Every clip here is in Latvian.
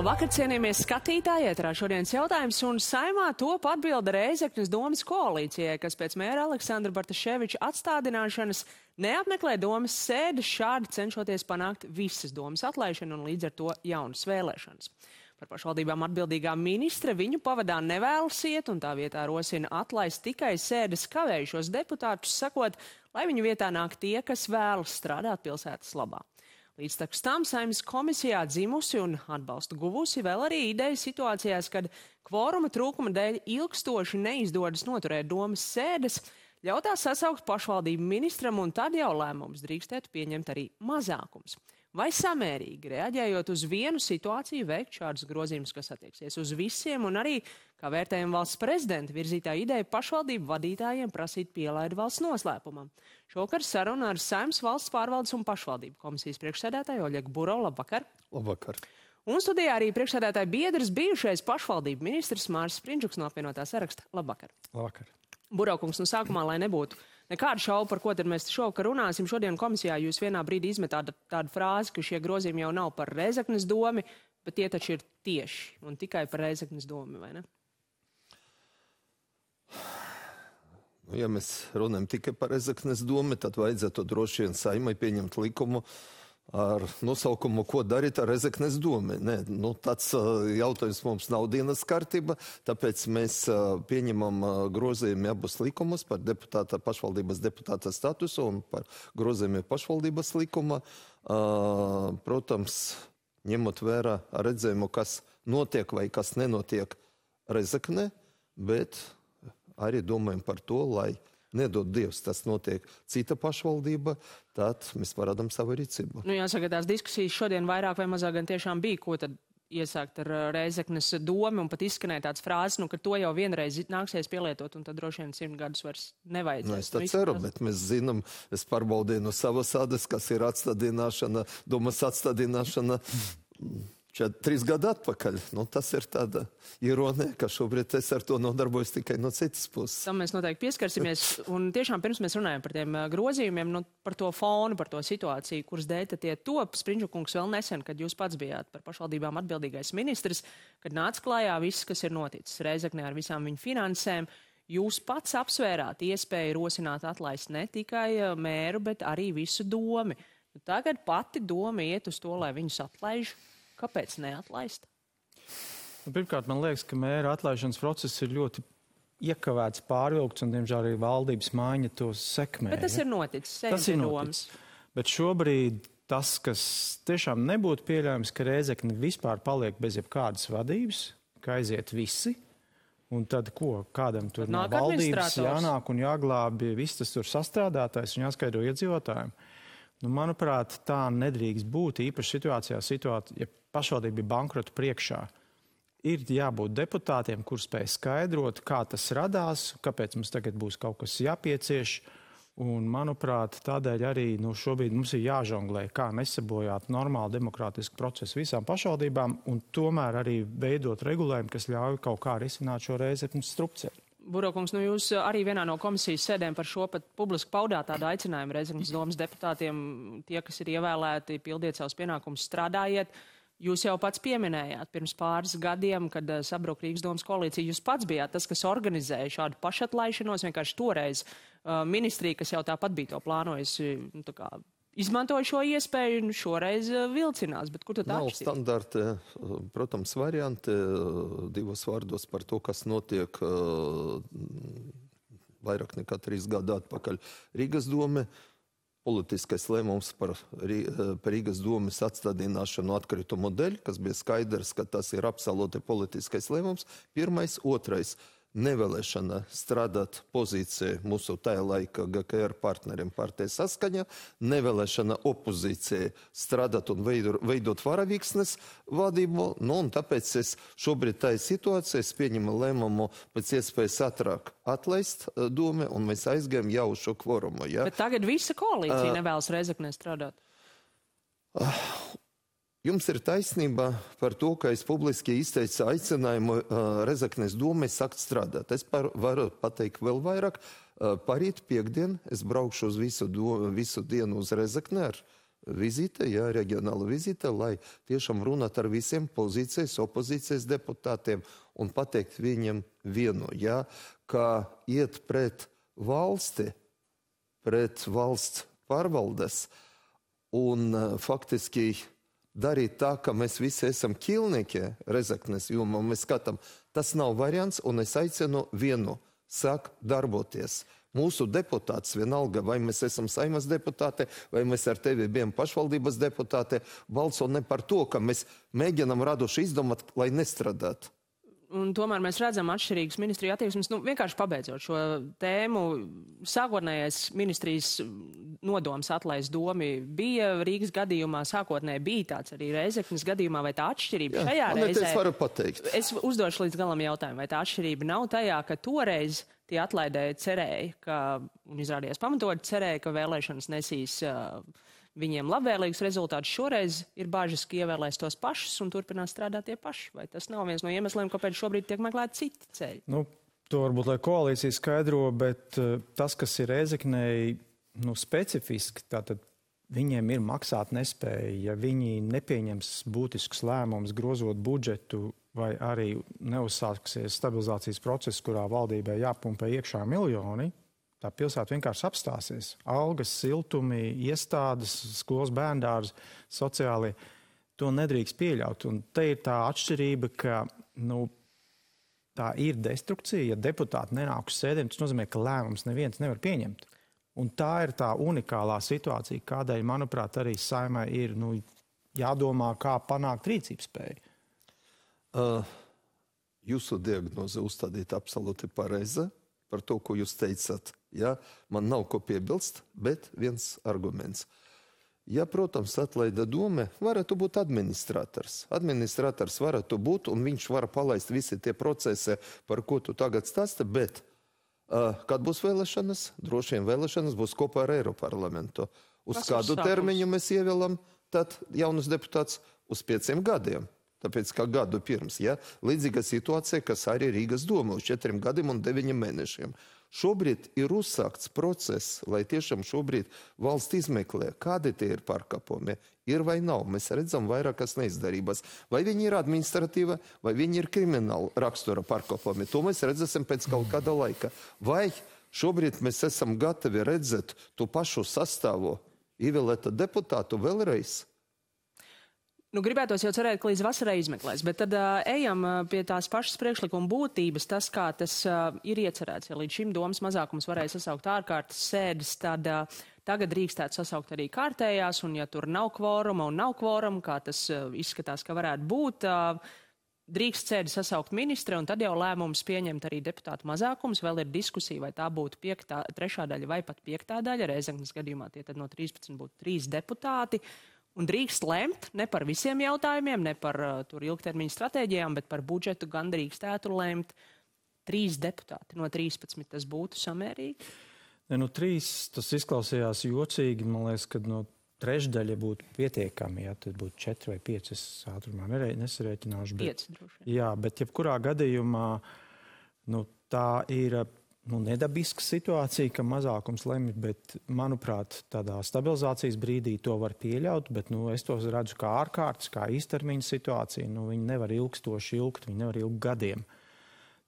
Labvakar, cienījamies skatītāji, ēterā šodienas jautājums, un Saeimā top atbilde Rēzeknes domas koalīcijai, kas pēc mēra Aleksandra Bartaševiča atstādināšanas neapmeklē domas sēdes, šādi cenšoties panākt visas domas atlaišanu un līdz ar to jaunas vēlēšanas. Par pašvaldībām atbildīgā ministre viņu pavadā nevēlas iet, un tā vietā rosina atlaist tikai sēdes kavējušos deputātus, sakot, lai viņu vietā nāk tie, kas vēlas strādāt pilsētas labā. Līdz tam Saeimas komisijā dzimusi un atbalstu guvusi vēl arī ideja situācijās, kad kvoruma trūkuma dēļ ilgstoši neizdodas noturēt domas sēdes, ļautās sasaukt pašvaldību ministram, un tad jau lēmums drīkstētu pieņemt arī mazākums. Vai samērīgi, reaģējot uz vienu situāciju, veikt šādus grozījumus, kas attieksies uz visiem, un arī, kā vērtējam valsts prezidenta virzītā ideja, pašvaldību vadītājiem prasīt pielaidu valsts noslēpumam. Šovakar saruna ar Saeimas valsts pārvaldes un pašvaldību komisijas priekšsēdētāju Oļegu Buro. Labvakar! Labvakar! Un studijā arī priekšsēdētāja biedrs, bijušais pašvaldību ministrs Māris Sprindžuks no apvienotā saraksta. Labvakar! Labvakar! Burokungs, sākumā, lai nebūtu nekādu šaubu, par ko tad mēs šovakar runāsim, šodien komisijā jūs vienā brīdī izmetāt tādu frāzi, ka šie grozījumi jau nav par Rēzeknes domi, bet tie taču ir tieši un tikai par Rēzeknes domi, vai ne? Ja mēs runājam tikai par Rēzeknes domu, tad vajadzētu droši vien Saeimai pieņemt likumu ar nosaukumu, ko darīt ar Rēzeknes domu. Nē, tāds jautājums mums nav dienas kārtība, tāpēc mēs pieņemam grozījumu abus likumus par pašvaldības deputāta statusu un par grozījumu pašvaldības likuma. Protams, ņemot vērā redzējumu, kas notiek vai kas nenotiek Rēzeknē, bet arī domājam par to, lai nedod Dievs, tas notiek cita pašvaldība, tad mēs parādām savu rīcību. Jāsaka, tās diskusijas šodien vairāk vai mazāk gan tiešām bija, ko tad iesākt ar Rēzeknes domu, un pat izskanēja tāds frāzes, ka to jau vienreiz nāksies pielietot, un tad droši vien 100 gadus vairs nevajadzēs. Es tā ceru, bet mēs zinām, es pārbaudīju no savas ādas, kas ir atstādināšana, domas atstādināšana 3 gadu atpakaļ. Tas ir tāda ironija, ka šobrīd es ar to nodarbojos tikai no citas puses. Tam mēs noteikti pieskarsimies. Un tiešām pirms mēs runājam par tiem grozījumiem, par to fonu, par to situāciju, kuras dēļ tie top, Sprindžukungs vēl nesen, kad jūs pats bijāt par pašvaldībām atbildīgais ministrs, kad nāca klājā viss, kas ir noticis Rēzeknē ar visām viņu finansēm, jūs pats apsvērāt iespēju rosināt atlaist ne tikai mēru, bet arī visu domi. Tagad pati doma iet uz to, lai viņus atlaiž. Kāpēc neatlaist? Pirmkārt, man liekas, ka mēra atlaišanas process ir ļoti iekavēts, pārvilkts, un, diemžēl, arī valdības maiņa to sekmē. Bet tas ir noticis. Tas ir noticis. Bet šobrīd tas, kas tiešām nebūtu pieļaujams, ka Rēzekne vispār paliek bez jebkādas vadības, ka aiziet visi, un tad ko? Kādam tur no valdības jānāk un jāglābi viss tas tur sastrādātais un jāskaidro iedzīvotājiem. Manuprāt, tā nedrīkst būt īpaši situācijā, ja pašvaldība ir bankrota priekšā. Ir jābūt deputātiem, kur spēj skaidrot, kā tas radās, kāpēc mums tagad būs kaut kas jāpiecieš. Un, manuprāt, tādēļ arī šobrīd mums ir jāžonglē, kā nesabojāt normālu demokrātisku procesu visām pašvaldībām un tomēr arī veidot regulējumu, kas ļauj kaut kā risināt šo Rēzeknes strupceļu. Burokungs, jūs arī vienā no komisijas sēdēm par šo pat publiski paudāt tādu aicinājumu Rēzeknes domas deputātiem, tie, kas ir ievēlēti, pildiet savus pienākumus, strādājiet. Jūs jau pats pieminējāt pirms pāris gadiem, kad sabruka Rīgas domas koalīcija, jūs pats bijāt tas, kas organizēja šādu pašatlaišanos, vienkārši toreiz ministrija, kas jau tāpat bija to plānojusi, izmantoja šo iespēju un šoreiz vilcinās, bet kur tad atšķiras? Nav standarti, protams, varianti, divos vārdos par to, kas notiek vairāk nekā 3 gadu atpakaļ Rīgas dome. Politiskais lēmums par Rīgas domes atstādināšanu atkritumu dēļ, kas bija skaidrs, ka tas ir absolūti politiskais lēmums. Pirmais, otrais. Nevēlēšana strādāt pozīcija mūsu tajā laika GKR partneriem partija Saskaņa, nevēlēšana opozīcija strādāt un veidot varavīksnes vadību, un tāpēc es šobrīd tajā situācijā pieņemu lēmumu pēc iespējas ātrāk atlaist domu, un mēs aizgājam jau uz šo kvorumu. Ja? Bet tagad visa koalīcija nevēlas Rēzeknē strādāt. Jums ir taisnība par to, ka es publiski izteicu aicinājumu Rēzeknes domai sākt strādāt. Es varu pateikt vēl vairāk. Parīt piekdien es braukšu uz visu dienu uz Rēzekni ar vizīte, jā, reģionāla vizīte, lai tiešām runāt ar visiem pozīcijas, opozīcijas deputātiem un pateikt viņiem vienu, jā, ka iet pret valsti, pret valsts pārvaldes un faktiski darīt tā, ka mēs visi esam ķilnieki Rezeknes jomā, mēs skatām, tas nav variants, un es aicinu vienu, sāk darboties. Mūsu deputāts vienalga, vai mēs esam Saimas deputāti, vai mēs ar tevi bijām pašvaldības deputāti, balso ne par to, ka mēs mēģinam radoši izdomāt, lai nestrādāt. Un tomēr mēs redzam atšķirīgas ministriju attieksmes. Vienkārši pabeidzot šo tēmu, sākotnējais ministrijas nodoms atlaist domi bija Rīgas gadījumā, sākotnēji bija tāds arī Reizeknes gadījumā, vai tā atšķirība šajā reizē? Es varu pateikt. Es uzdošu līdz galam jautājumu, vai tā atšķirība nav tajā, ka toreiz tie atlaidēji cerēja, un izrādījās pamatot cerēja, ka vēlēšanas nesīs viņiem labvēlīgus rezultātus. Šoreiz ir bažas, ka ievēlēs tos pašus un turpinās strādāt tie paši. Vai tas nav viens no iemesliem, kāpēc šobrīd tiek meklēti citi ceļi? To varbūt, lai koalīcija skaidro, bet tas, kas ir Reizeknei, specifiski, tātad viņiem ir maksāt nespēja. Ja viņi nepieņems būtiskus lēmumus, grozot budžetu, vai arī neuzsāksies stabilizācijas process, kurā valdībai jāpumpē iekšā miljoni, tā pilsēta vienkārši apstāsies. Algas, siltumi, iestādes, skolas bērndārs, sociāli, to nedrīkst pieļaut. Un te ir tā atšķirība, ka tā ir destrukcija. Ja deputāti nenāk uz sēdēm, tas nozīmē, ka lēmums neviens nevar pieņemt. Un tā ir tā unikālā situācija, kādēļ, manuprāt, arī Saimai ir jādomā, kā panākt rīcības spēju. Jūsu diagnoze uzstādīta absolūti pareiza par to, ko jūs teicat. Ja? Man nav ko piebilst, bet viens arguments. Ja, protams, atlaida doma, varētu būt administrators. Administrators varētu būt, un viņš var palaist visi tie procesi, par ko tu tagad stāsti, bet kad būs vēlēšanas, droši vien vēlēšanas būs kopā ar Eiroparlamentu. Uz kādu termiņu mēs ievēlam, tad jaunas deputāts uz 5 gadiem. Tāpēc, kā gadu pirms, ja? Līdzīga situācija, kas arī Rīgas doma uz 4 gadiem un 9 mēnešiem. Šobrīd ir uzsākts process, lai tiešām šobrīd valsts izmeklē, kādi tie ir pārkāpumi. Ir vai nav, mēs redzam vairākas neizdarības. Vai viņi ir administratīva, vai viņi ir krimināla rakstura pārkāpumi. To mēs redzēsim pēc kaut kāda laika. Vai šobrīd mēs esam gatavi redzēt to pašu sastāvu ievēlēta deputātu vēlreiz? Gribētos jau cerēt, ka līdz vasarai izmeklēs, bet tad ejam pie tās pašas priekšlikuma būtības, tas, kā tas ir iecerēts. Ja līdz šim domas mazākums varēja sasaukt ārkārtas sēdes, tad tagad drīkstētu sasaukt arī kārtējās, un ja tur nav kvoruma un nav kvoruma, kā tas izskatās, ka varētu būt, drīkst sēdi sasaukt ministre, un tad jau lēmums pieņemt arī deputātu mazākums. Vēl ir diskusija, vai tā būtu 3. daļa vai pat 5. daļa. Reizeknes gadījumā tie tad no 13 būtu 3 deputāti. Un drīkst lemt ne par visiem jautājumiem, ne par ilgtermiņa stratēģijām, bet par budžetu gan drīkstētu lemt 3 deputāti. No 13 tas būtu samērīgi? 3 tas izklausījās jocīgi. Man liekas, ka no trešdaļa būtu pietiekami. Ja, tad būtu 4 vai 5. Es ātrumā nesarēķināšu. 5 droši vien. Jā, bet jebkurā gadījumā tā ir nedabiska situācija, ka mazākums lemj, bet, manuprāt, tādā stabilizācijas brīdī to var pieļaut, bet es to redzu kā ārkārtas, kā īstermiņa situācija. Viņi nevar ilgstoši ilgt, viņi nevar ilgt gadiem.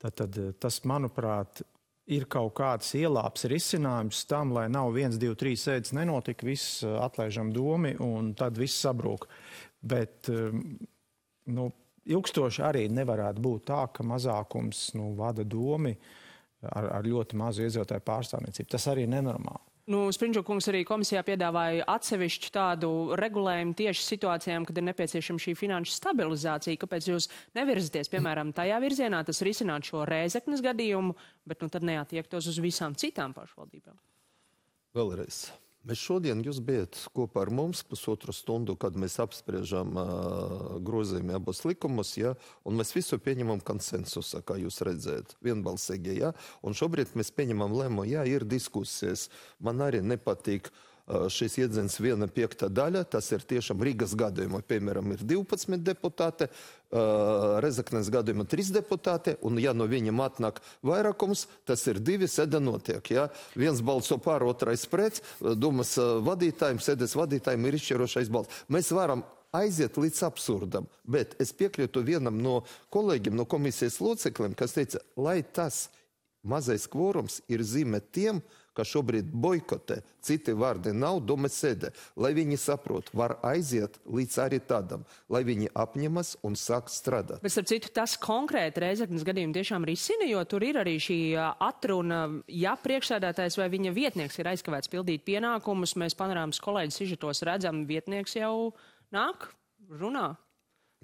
Tad tas, manuprāt, ir kaut kāds ielāps risinājums tam, lai nav 1, 2, 3 sēdes nenotika, viss atlaižam domi un tad viss sabrūk. Bet, ilgstoši arī nevarētu būt tā, ka mazākums vada domi ar ļoti mazu iedzīvotāju pārstāvniecību. Tas arī ir nenormāli. Sprindžuka kungs arī komisijā piedāvāja atsevišķu tādu regulējumu tieši situācijām, kad ir nepieciešama šī finanšu stabilizācija. Kāpēc jūs nevirzaties, piemēram, tajā virzienā, tas risināt šo Reizeknes gadījumu, bet tad neattiektos uz visām citām pašvaldībām? Vēlreiz. Mēs šodien jūs bijat kopā ar mums 1,5 stundu, kad mēs apspriežam grozījumi abos likumus, ja, un mēs visu pieņemam konsensusā, kā jūs redzējat, vienbalsīgi, ja, un šobrīd mēs pieņemam lēmumu, ja, ir diskusijas. Man arī nepatīk šis iedzens 1/5 daļa, tas ir tiešām Rīgas gadījumā, piemēram, ir 12 deputāti, Rezeknes gadījumā 3 deputāti, un ja no viņam atnāk vairākums, tas ir 2, sēde notiek. Ja? Viens balso pār, otrais pret, domas vadītājiem, sēdes vadītājiem ir izšķirošais balss. Mēs varam aiziet līdz absurdam, bet es piekrītu vienam no kolēģiem, no komisijas locekļiem, kas teica, lai tas mazais kvorums ir zīme tiem, kas šobrīd boikotē, citi vārdi nav, doma sēdē, lai viņi saprot, var aiziet līdz arī tādam, lai viņi apņemas un sāk strādāt. Bet, starp citu, tas konkrēti Rēzeknes gadījumu tiešām risina, jo tur ir arī šī atruna, ja priekšsēdētājs vai viņa vietnieks ir aizkavēts pildīt pienākumus, mēs panorāmas kolēģis sižetos redzam, vietnieks jau nāk, runā.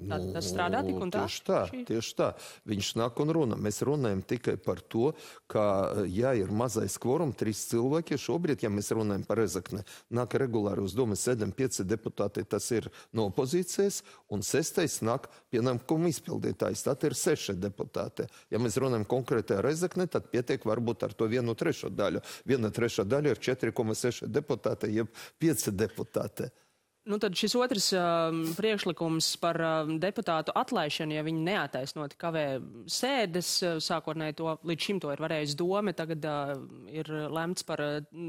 Tas strādā tik un tā? Tieši tā. Viņš nāk un runā. Mēs runājam tikai par to, ka, ja ir mazais kvorums, 3 cilvēki, šobrīd, ja mēs runājam par Rezekni, nāk regulāri uz domas sēdēm 5 deputāti, tas ir no opozīcijas, un 6. nāk pienākumu izpildītājs, tad ir 6 deputāti. Ja mēs runājam konkrēti ar Rezekni, tad pietiek varbūt ar to 1/3 daļu. 1/3 daļa ir 4,6 deputāti, jeb 5 deputāti. Nu, tad šis otrs priekšlikums par deputātu atlaišanu, ja viņi neataisnoti kavē sēdes, sākotnēji to līdz šim to ir varējis doma, tagad ir lemts par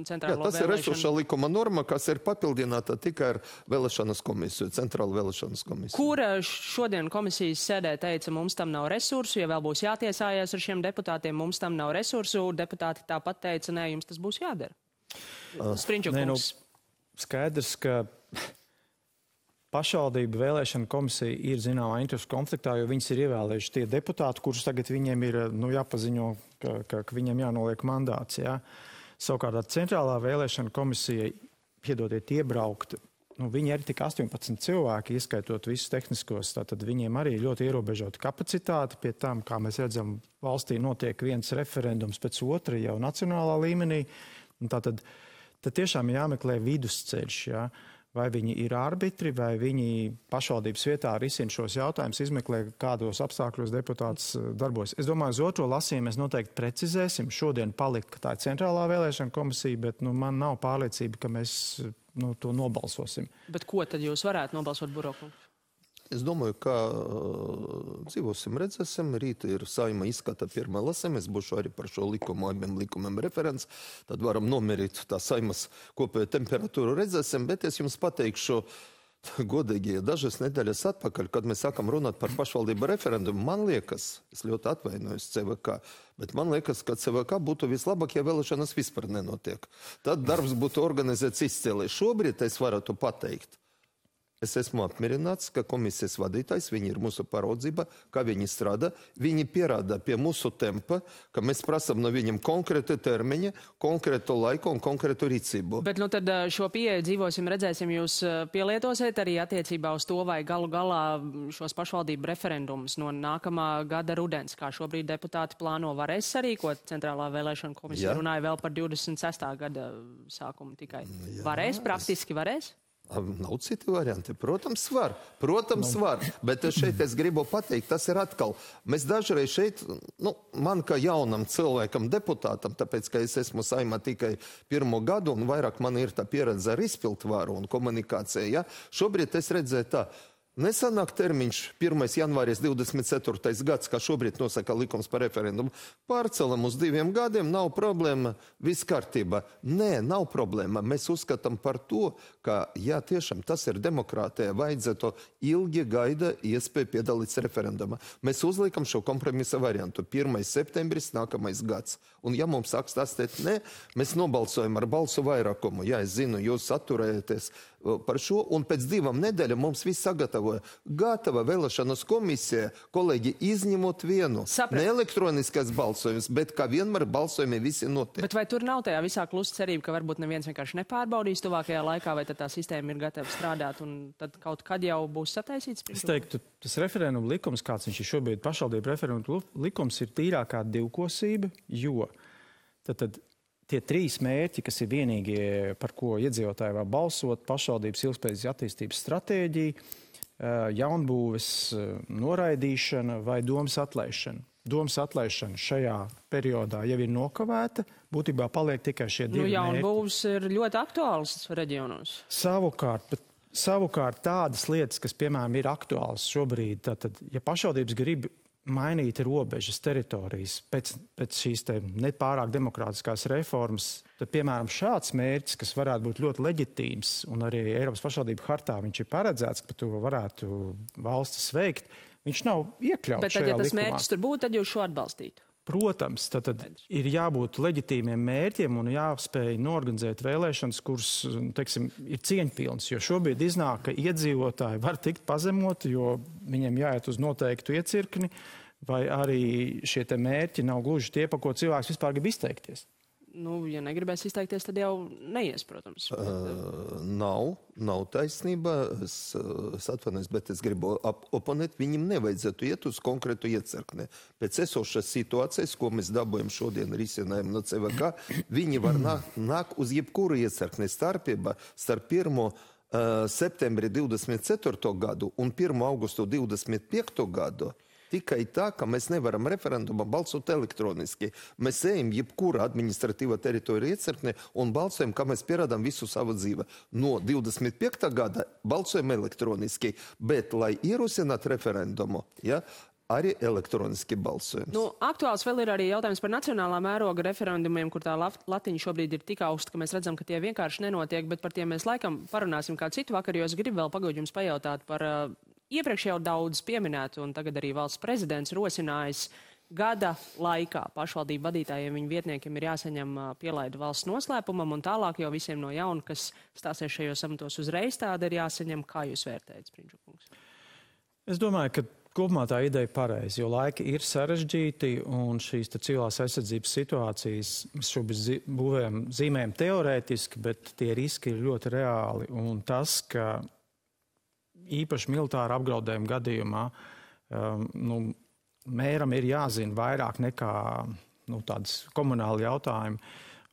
centrālo vēlēšanu. Tas ir esošā likuma norma, kas ir papildināta tikai ar vēlēšanas komisiju, centrālu vēlēšanas komisiju. Kura šodien komisijas sēdē teica, mums tam nav resursu, ja vēl būs jātiesājas ar šiem deputātiem, mums tam nav resursu, deputāti tāpat teica, nē, jums tas būs jādara. Sprinčukungs. Skaidrs, ka pašvaldību vēlēšana komisija ir zināmā interešu konfliktā, jo viņas ir ievēlējuši tie deputāti, kurus tagad viņiem ir jāpaziņo, ka viņiem jānoliek mandāts. Jā. Savukārt centrālā vēlēšana komisija, piedodiet, iebraukt, viņi ir tik 18 cilvēki, ieskaitot visus tehniskos, tātad viņiem arī ļoti ierobežota kapacitāte, pie tām, kā mēs redzam, valstī notiek viens referendums pēc otra jau nacionālā līmenī, un tātad tiešām jāmeklē vidusceļš, jā. Vai viņi ir arbitri, vai viņi pašvaldības vietā risina šos jautājumus, izmeklē, kādos apstākļos deputāts darbojas. Es domāju, uz otro lasījumu mēs noteikti precizēsim. Šodien palika tā centrālā vēlēšana komisija, bet man nav pārliecība, ka mēs to nobalsosim. Bet ko tad jūs varētu nobalsot, Burokungs? Es domāju, ka dzīvosim, redzēsim. Rīt ir Saeima izskata pirmā lasījuma. Es būšu arī par šo likumu, abiem likumiem referents. Tad varam nomierīt tā Saeimas kopējo temperatūru, redzēsim. Bet es jums pateikšu godīgi, dažas nedēļas atpakaļ, kad mēs sākam runāt par pašvaldību referendumu, man liekas, es ļoti atvainojos CVK, bet man liekas, ka CVK būtu vislabāk, ja vēlēšanas vispār nenotiek. Tad darbs būtu organizēts izcēlē. Šobrīd es varētu pateikt. Es esmu apmierināts, ka komisijas vadītājs, viņi ir mūsu paraudzība, kā viņi strādā. Viņi pierāda pie mūsu tempa, ka mēs prasam no viņiem konkrētu termiņu, konkrētu laiku un konkrētu rīcību. Bet tad šo pieeju dzīvosim, redzēsim, jūs pielietosiet arī attiecībā uz to, vai galu galā šos pašvaldību referendumus no nākamā gada rudens, kā šobrīd deputāti plāno, varēs sarīkot. Centrālā vēlēšana komisija runāja vēl par 26. gada sākumu tikai. Varēs, praktiski varēs? Nav citi varianti. Protams, var. Bet šeit es gribu pateikt, tas ir atkal. Mēs dažreiz šeit, man kā jaunam cilvēkam, deputātam, tāpēc, ka es esmu Saeimā tikai 1. gadu un vairāk man ir tā pieredze ar izpildvaru un komunikāciju, ja? Šobrīd es redzēju tā. Nesanāk termiņš 1. janvāris 24. gads, kā šobrīd nosaka likums par referendumu. Pārcelam uz 2 gadiem, nav problēma, viss kārtībā. Nē, nav problēma. Mēs uzskatām par to, ka, ja tiešām tas ir demokrātija, vajadzētu ilgi gaida iespēju piedalīties referendumā. Mēs uzliekam šo kompromisa variantu. 1. septembris, nākamais gads. Un ja mums sāks stāstīt, nē, mēs nobalsojam ar balsu vairākumu. Jā, es zinu, jūs atturējaties par šo, un pēc 2 nedēļām mums viss sagatavoja. Gatava vēlēšanas komisija, kolēģi, izņemot vienu. Ne elektroniskais balsojums, bet kā vienmēr balsojumi visi notiek. Bet vai tur nav tajā visā klusa cerība, ka varbūt neviens vienkārši nepārbaudīs tuvākajā laikā, vai tad tā sistēma ir gatava strādāt, un tad kaut kad jau būs sataisīts? Es teiktu, tas referenduma likums, kāds viņš ir šobrīd, pašvaldību referenduma likums, ir tīrākā divkosība, jo tad tie 3 mērķi, kas ir vienīgie, par ko iedzīvotāji var balsot, pašvaldības ilgspējīgas attīstības stratēģija, jaunbūves noraidīšana vai domas atlaišana. domas atlaišana šajā periodā jau ir nokavēta, būtībā paliek tikai šie divi mērķi. Jaunbūvs ir ļoti aktuāls reģionos. Savukārt tādas lietas, kas, piemēram, ir aktuāls šobrīd, tad, ja pašvaldības grib mainīt robežas teritorijas pēc šīs nepārāk demokrātiskās reformas, tad, piemēram, šāds mērķis, kas varētu būt ļoti leģitīms, un arī Eiropas pašvaldību hartā viņš ir paredzēts, ka to varētu valstis veikt, viņš nav iekļauts bet tad, šajā ja tas likumā. mērķis tur būtu, tad jūs šo atbalstītu? Protams, tad ir jābūt leģitīmiem mērķiem un jāspēj norganizēt vēlēšanas, kuras, teiksim, ir cieņpilnas, jo šobrīd iznāk, ka iedzīvotāji var tikt pazemoti, jo viņiem jāiet uz noteiktu iecirkni, vai arī šie te mērķi nav gluži tie, pa ko cilvēks vispār grib izteikties. Nu, ja negribēs izteikties, tad jau neies, protams. Nav taisnība, es atvainojos, bet es gribu oponēt, viņam nevajadzētu iet uz konkrētu iecirkni. Pēc esošas situācijas, ko mēs dabūjam šodien risinājumu no CVK, viņi var nākt uz jebkuru iecirkni. Starpība starp 1. septembri 24. gadu un 1. augustu 25. gadu tikai tā, ka mēs nevaram referendumā balsot elektroniski. Mēs ejam jebkura administratīva teritorija iecirknē un balsojam, kā mēs pierādām visu savu dzīvi. No 25. gada balsojam elektroniski, bet, lai ierosinātu referendumu, arī elektroniski balsojums. Nu, aktuāls vēl ir arī jautājums par nacionālā mēroga referendumiem, kur tā latiņa šobrīd ir tik augsta, ka mēs redzam, ka tie vienkārši nenotiek, bet par tiem mēs laikam parunāsim kā citu vakaru, jo es gribu vēl pagaidīt jums pajautāt par iepriekš jau daudz pieminētu, un tagad arī valsts prezidents rosinājis gada laikā pašvaldību vadītājiem, viņu vietniekiem ir jāsaņem pielaidu valsts noslēpumam, un tālāk jau visiem no jauna, kas stāsies šajos amatos uzreiz, tāda ir jāsaņem. Kā jūs vērtējat, Spriņģukungs? Es domāju, ka kopumā tā ideja ir pareiza, jo laiki ir sarežģīti, un šīs civilās aizsardzības situācijas mēs šobrīd zīmējam teorētiski, bet tie riski ir ļoti reāli, un tas, ka īpaši militāra apdraudējuma gadījumā mēram ir jāzina vairāk nekā tādas komunāli jautājumi.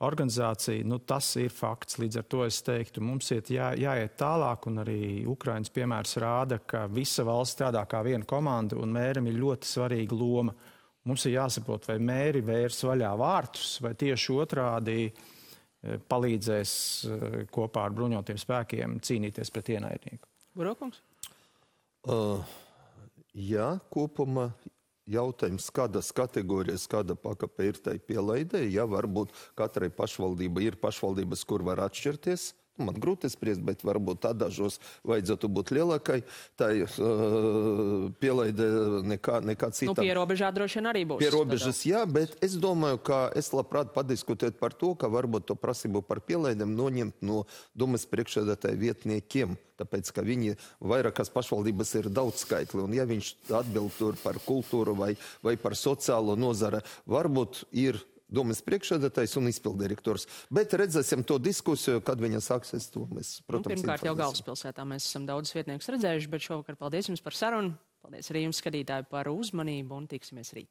Organizācija, tas ir fakts. Līdz ar to es teiktu, mums jāiet tālāk, un arī Ukrainas piemērs rāda, ka visa valsts strādā kā viena komanda, un mēram ir ļoti svarīga loma. Mums ir jāsaprot, vai mēri vērs vaļā vārtus, vai tieši otrādi palīdzēs kopā ar bruņotiem spēkiem cīnīties pret ienaidnieku. Burokungs? Jā, kopumā jautājums, kādas kategorijas, kāda pakape ir tai pielaidē. Jā, varbūt katrai pašvaldība ir pašvaldības, kur var atšķirties. Man grūti spriest, bet varbūt dažos vajadzētu būt lielākai. Tā pielaide nekā citā. Pierobežā droši vien arī būs. Pierobežas, jā, bet es domāju, ka es labprāt padiskutēt par to, ka varbūt to prasību par pielaidēm noņemt no domas priekšsēdētāju vietniekiem. Tāpēc, ka viņi vairākas pašvaldības ir daudz skaitli. Un ja viņš atbild tur par kultūru vai par sociālo nozara, varbūt ir domas priekšsēdētājs un izpildirektors. Bet redzēsim to diskusiju, kad viņa sāksies to. Mēs, protams, pirmkārt jau galvaspilsētā mēs esam daudz vietniekus redzējuši, bet šovakar paldies jums par sarunu. Paldies arī jums, skatītāji, par uzmanību un tiksimies rīt.